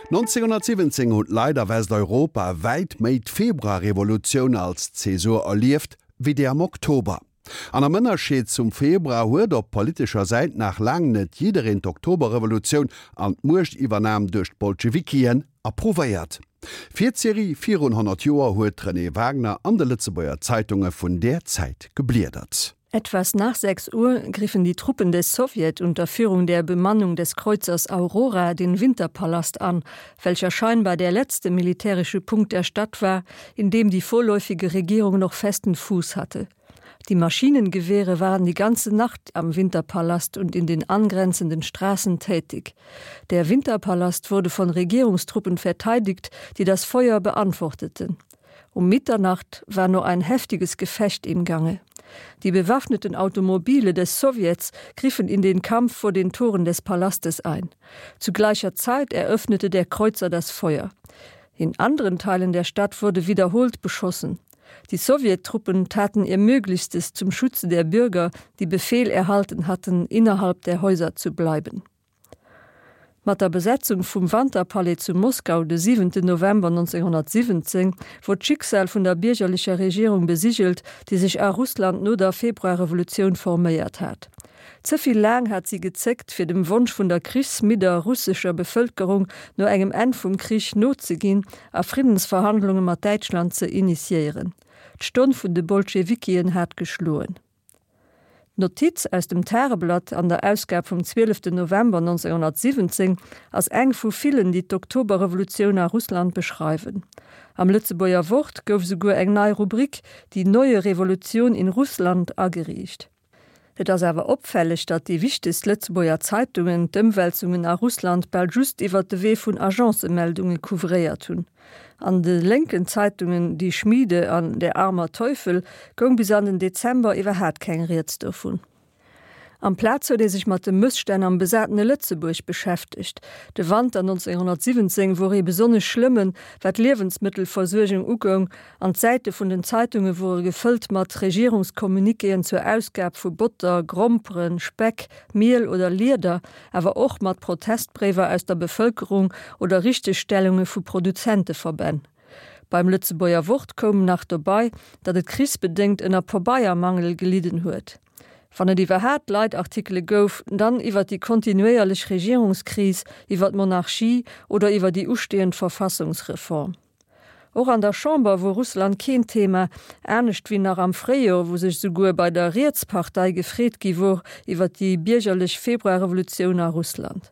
1917 hunn d'Leit a Westeuropa wäit méi d'Februarrevolutioun als Zäsur erlieft, wéi déi am Oktober. An am Ënnerscheed zum Februar huet op politescher Säit nach laang net jiddereen d'Oktoberrevolutioun an d'Muechtiwwernam duerch d'Bolschewikien approuvéiert. Fir d'Serie Virun 100 Joer huet d'Renée Wagner an de Lëtzebuerger Zeitunge vun där Zäit gebliedert. Etwas nach 6 Uhr griffen die Truppen des Sowjet unter Führung der Bemannung des Kreuzers Aurora den Winterpalast an, welcher scheinbar der letzte militärische Punkt der Stadt war, in dem die vorläufige Regierung noch festen Fuß hatte. Die Maschinengewehre waren die ganze Nacht am Winterpalast und in den angrenzenden Straßen tätig. Der Winterpalast wurde von Regierungstruppen verteidigt, die das Feuer beantworteten. Um Mitternacht war nur ein heftiges Gefecht im Gange. Die bewaffneten Automobile des Sowjets griffen in den Kampf vor den Toren des Palastes ein. Zu gleicher Zeit eröffnete der Kreuzer das Feuer. In anderen Teilen der Stadt wurde wiederholt beschossen. Die Sowjettruppen taten ihr Möglichstes zum Schutze der Bürger, die Befehl erhalten hatten, innerhalb der Häuser zu bleiben. Mat der Besetzung vum Wanterpalais zu Moskau de 7 November 1917 wor d'Schicksal vun der biergerlecher Regierung besigelt, déi sech a Russland no der Februarrevolutioun forméiert hat. Ze vill laang hat si gezéckt, fir dem Wonsch vun der krichsmidder russescher Bevëlkerung no engem Enn vum Krich nozeginn a Friddensverhandlunge mat Däitschland ze initiéieren. D'Stonn vun de Bolschewikien hat geschloen. D'Notiz aus dem Tageblatt an der Ausgab vum 12 November 1917 ass eng vu villen, déi d'Oktoberrevolutioun a Russland beschreiwen. Am Lëtzebuerger Wort gouf esouguer eng nei Rubrik, Die neue Revolution in Russland, ageriicht. Et ass awer opfälleg, datt déi wichtegst Lëtzebuerger Zeitungen d'Ëmwälzungen a Russland bal just iwwer de Wee vun Agencemeldunge couvréiert hunn. An de lénken Zeitungen Die Schmiede an Der armer Teufel goung bis an den Dezember iwwerhaat keng Rieds dovun. Amplaz huet ee sech mat de Mësstänn am besatene Lëtzebuerg beschäftegt. De Wanter 1917 wor ee besonnesch schlëmmen, wat d'Liewensmëttelversuergung ugoung, an d'Säite vun den Zeitunge wore gefëllt mat Regierungscommuniquéen zur Ausgab vu Botter, Gromperen, Speck, Miel oder Lieder, awer och mat Protestbréiwer aus der Bevëlkerung oder Richtegstellunge vu Produzenteverbänn. Beim Lëtzebuerger Wort koum nach dobei, datt et krichsbedéngt ënner Pabeiermangel gelidden huet. Wann et iwwerhaat Leitartikele gouf, dann iwwer déi kontinuéierlech Regierungskris, iwwer d'Monarchie oder iwwer déi ustehend Verfassungsreform. Och an der Chamber wor Russland keen Thema, anescht wéi nach am Fréijor, wou sech souguer bei der Rietspartei gefreet gi wor iwwer déi biergerlech Februarrevolutioun a Russland.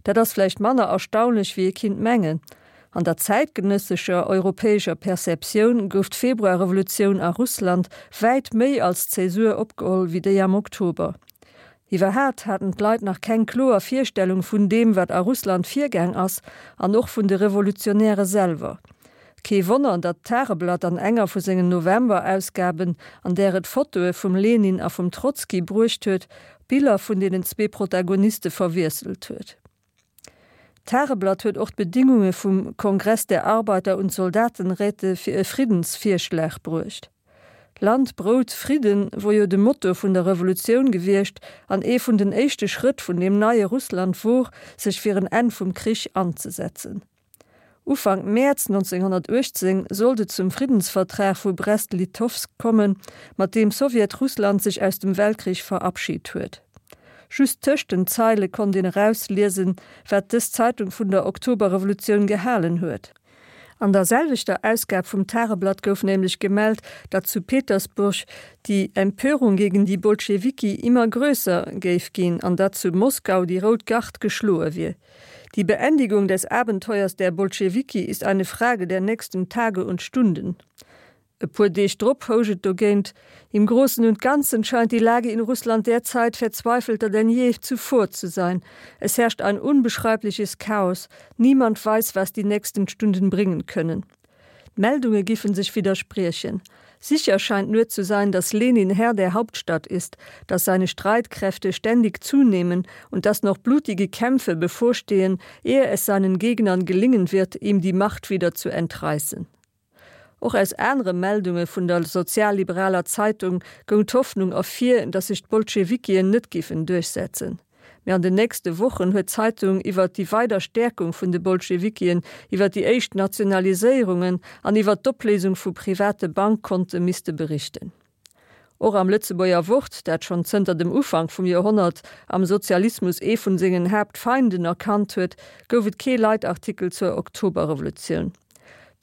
Dat ass vläicht manner erstaunlech wéi ee kinnt mengen. An der zäitgenëssescher europäescher Perceptioun gouf d'Februarrevolutioun a Russland wäit méi als Zäsur opgeholl wéi déi am Oktober. Iwwerhaat haten d'Leit nach keng kloer Virstellung vun deem, wat a Russland virgaang ass, an och vun de Revolutionäre selwer. Kee Wonner, datt d'Tageblatt an enger vu sengen November-Ausgaben, an där et Fotoe vum Lenin a vum Trotzki bruecht huet, d'Biller vun deenen zwee Protagoniste verwiesselt huet. D'Tageblatt huet och d'Bedingunge vum Kongress der Arbeiter und Soldatenräte fir e Friddensvirschlag bruecht. Land, Brout, Fridden wor jo de Motto vun der Revolutioun gewiescht an ee vun den éischte Schrëtt vun deem neie Russland wor, sech fir en Enn vum Krich anzesetzen. Ufank Mäerz 1918 sollt et zum Friddensvertrag vu Brest-Litovsk kommen, mat deem Sowjetrussland sech aus dem Weltkrich verabschit huet. Just tëscht den Zeile konnt een erausliesen, wat dës Zeitung vun der Oktoberrevolutioun gehalen huet. An der selwechter Ausgab vum Tageblatt gouf nämlech gemellt, datt zu Petersburg die Empörung gegen die Bolschewiki immer größer géif ginn an datt zu Moskau die Rout Gard geschloe wier. Die Beendigung des Abenteuers der Bolschewiki ist eine Frage der nächsten Tage und Stunden. E puer Deeg drop housch et dogéint, Im Großen und Ganzen scheint die Lage in Russland derzeit verzweifelter denn je zuvor zu sein. Es herrscht ein unbeschreibliches Chaos. Niemand weiß, was die nächsten Stunden bringen können. D'Meldunge giffen sech widderspriechen. Sicher scheint nur zu sein, dass Lenin Herr der Hauptstadt ist, dass seine Streitkräfte ständig zunehmen und dass noch blutige Kämpfe bevorstehen, ehe es seinen Gegnern gelingen wird, ihm die Macht wieder zu entreißen. Och aus anere Meldunge vun der sozialliberaler Zeitung goung d'Hoffnung ervir, datt sech d'Bolschewikien net giffen duerchsetzen. Mee an den nächste Wochen huet d'Zeitung iwwert déi weider Stäerkung vun de Bolschewikien, iwwer déi éischt Nationaliséierungen an iwwer d'Opléisung vu private Bankkonte misste berichten. Och am Lëtzebuerger Wort, dat schonn zënter dem Ufank vum Joerhonnert am Sozialismus ee vun sengen Haaptfeinden erkannt huet, gouf et kee Leitartikel zur Oktoberrevolutioun.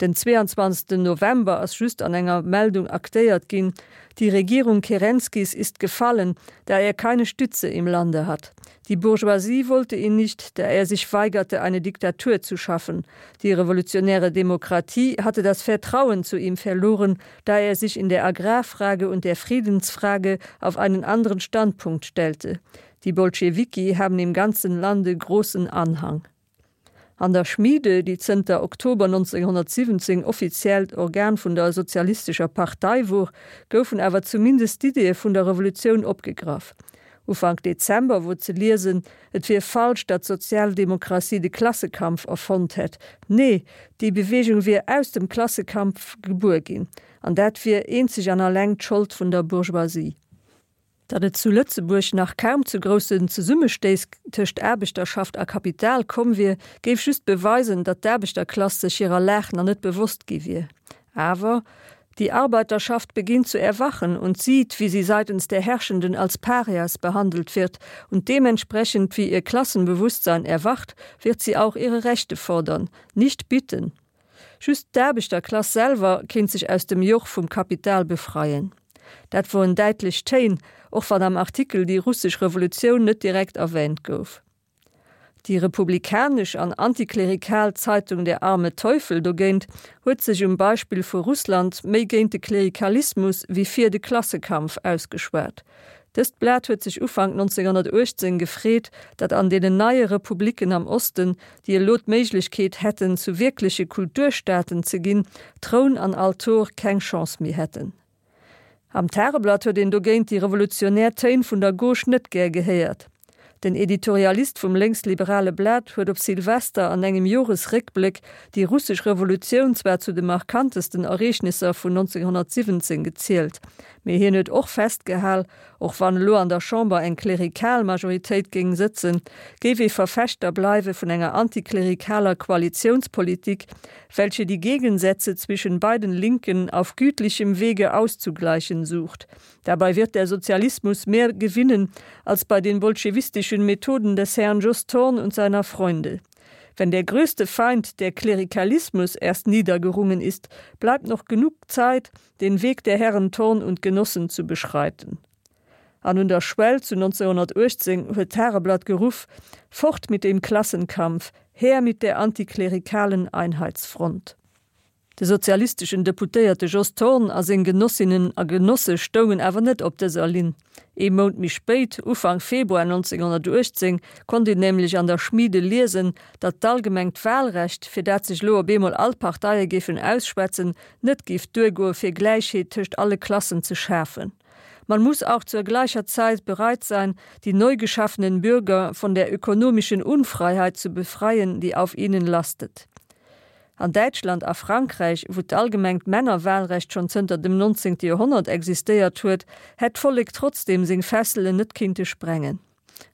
Den 22. November ass just an enger Meldung aktéiert ginn, Die Regierung Kerenskis ist gefallen, da er keine Stütze im Lande hat. Die Bourgeoisie wollte ihn nicht, da er sich weigerte, eine Diktatur zu schaffen. Die revolutionäre Demokratie hatte das Vertrauen zu ihm verloren, da er sich in der Agrarfrage und der Friedensfrage auf einen anderen Standpunkt stellte. Die Bolschewiki haben im ganzen Lande großen Anhang. An der Schmiede, déi zënter Oktober 1917 offiziellt Organ vun der Sozialistescher Partei wor, goufen awer zumindest d'Iddie vun der Revolutioun opgegraff. Ufank Dezember wor ze liesen, et wier falsch, datt d'Sozialdemokratie de Klassekampf erfonnt hätt. Nee, déi Beweegung wier aus dem Klassekampf gebuer ginn, an dat wier eenzeg an alleng d'Schold vun der Bourgeoisie. Datt et zu Lëtzebuerg nach kaum zu groussen Zesummestéiss tëscht Aarbechterschaft a Kapital komm wier, géif just beweisen, datt d'Aarbechterklass sech hirer Lag nach net bewosst gi wier. Awer, Die Arbeiterschaft beginnt zu erwachen und sieht, wie sie seitens der Herrschenden als Parias behandelt wird, und dementsprechend wie ihr Klassenbewusstsein erwacht, wird sie auch ihre Rechte fordern, nicht bitten. Just d'Aarbechterklass selwer kéint sech aus dem Joch vum Kapital befreien. Dat woren däitlech Téin, och wann am Artikel déi russesch Revolutioun net direkt erwäänt gouf. Déi republikanesch an antiklerikal Zeitung Der arme Teufel dogéint huet sech um Beispill vu Russland méi géint de Klerikalismus wéi fir de Klassekampf ausgeschwat. Dëst Blat huet sech Ufank 1918 gefreet, datt an deenen neie Republiken am Osten, déi elo d'Méiglechkeet hätten, zu wierkleche Kulturstaaten ze ginn, Troun an Altor keng Chance méi hätten. Am Tageblatt huet een dogéint déi revolutionär Téin vun der Gauche net gär gehéiert. Den Editorialist vum lénksliberale Blat huet op Silvester an engem Joresréckbléck déi russesch Revolutioun zwar zu de markantesten Ereegnisser vun 1917 gezielt, mee hien huet och festgehal, och wann elo an der Chamber eng klerikal Majoritéit géing sëtzen, géif ee Verfechter bleiwe vun enger antiklerikaler Koalitiounspolitik, welche die Gegensätze zwischen beiden Linken auf gütlichem Wege auszugleichen sucht. Dabei wird der Sozialismus mehr gewinnen als bei den bolschewistischen Methoden des Herrn Jos Thorn und seiner Freunde. Wenn der größte Feind, der Klerikalismus, erst niedergerungen ist, bleibt noch genug Zeit, den Weg der Herren Thorn und Genossen zu beschreiten. An un der Schwell zu 1918 huet d'Tageblatt geruff, Fort mit dem Klassenkampf, her mit der antiklerikalen Einheitsfront. De sozialisteschen Deputéierte Jos Thorn a seng Genossinnen a Genosse stoungen awer net op dëser Linn. Ee Mount méi spéit, Ufank Februar 1918, konnt een nämlech an der Schmiede liesen, datt d'allgemengt Wahlrecht, fir dat sech elo op eemol all d'Parteie géifen ausschwätzen, net géif duergoe fir Gläichheet tëscht alle Klassen ze schafen. Man muss auch zur gleicher Zeit bereit sein, die neu geschaffenen Bürger von der ökonomischen Unfreiheit zu befreien, die auf ihnen lastet. An Däitschland a Frankräich, wou d'allgemengt Männerwahlrecht schonn zënter dem 19. Joerhonnert existéiert huet, hätt d'Vollek trotzdeem seng Fesselen net kinnte sprengen.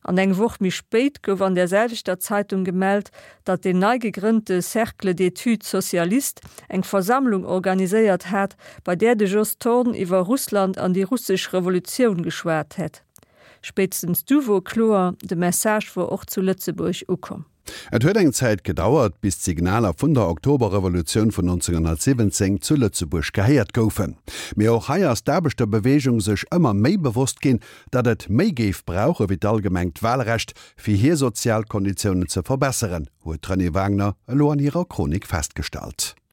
An eng Woch méi spéit gouf an där selwechter Zeitung gemellt, datt deen nei gegrënnte Cercle d'études socialistes eng Versammlung organiséiert hat, bei där de Jos Thorn iwwer Russland an déi russesch Revolutioun geschwat hätt. Spéitstens du wor kloer, de Message wor och zu Lëtzebuerg ukomm. Et huet eng Zäit gedauert, bis d'Signaler vun der Oktoberrevolutioun vun 1917 zu Lëtzebuerg gehéiert goufen. Mee och hei ass d'Aarbechterbeweegung sech ëmmer méi bewosst ginn, datt et méi géif brauche wéi d'allgemengt Wahlrecht, fir hir sozial Konditiounen ze verbesseren, huet d'Renée Wagner elo an hirer Chronik festgestallt.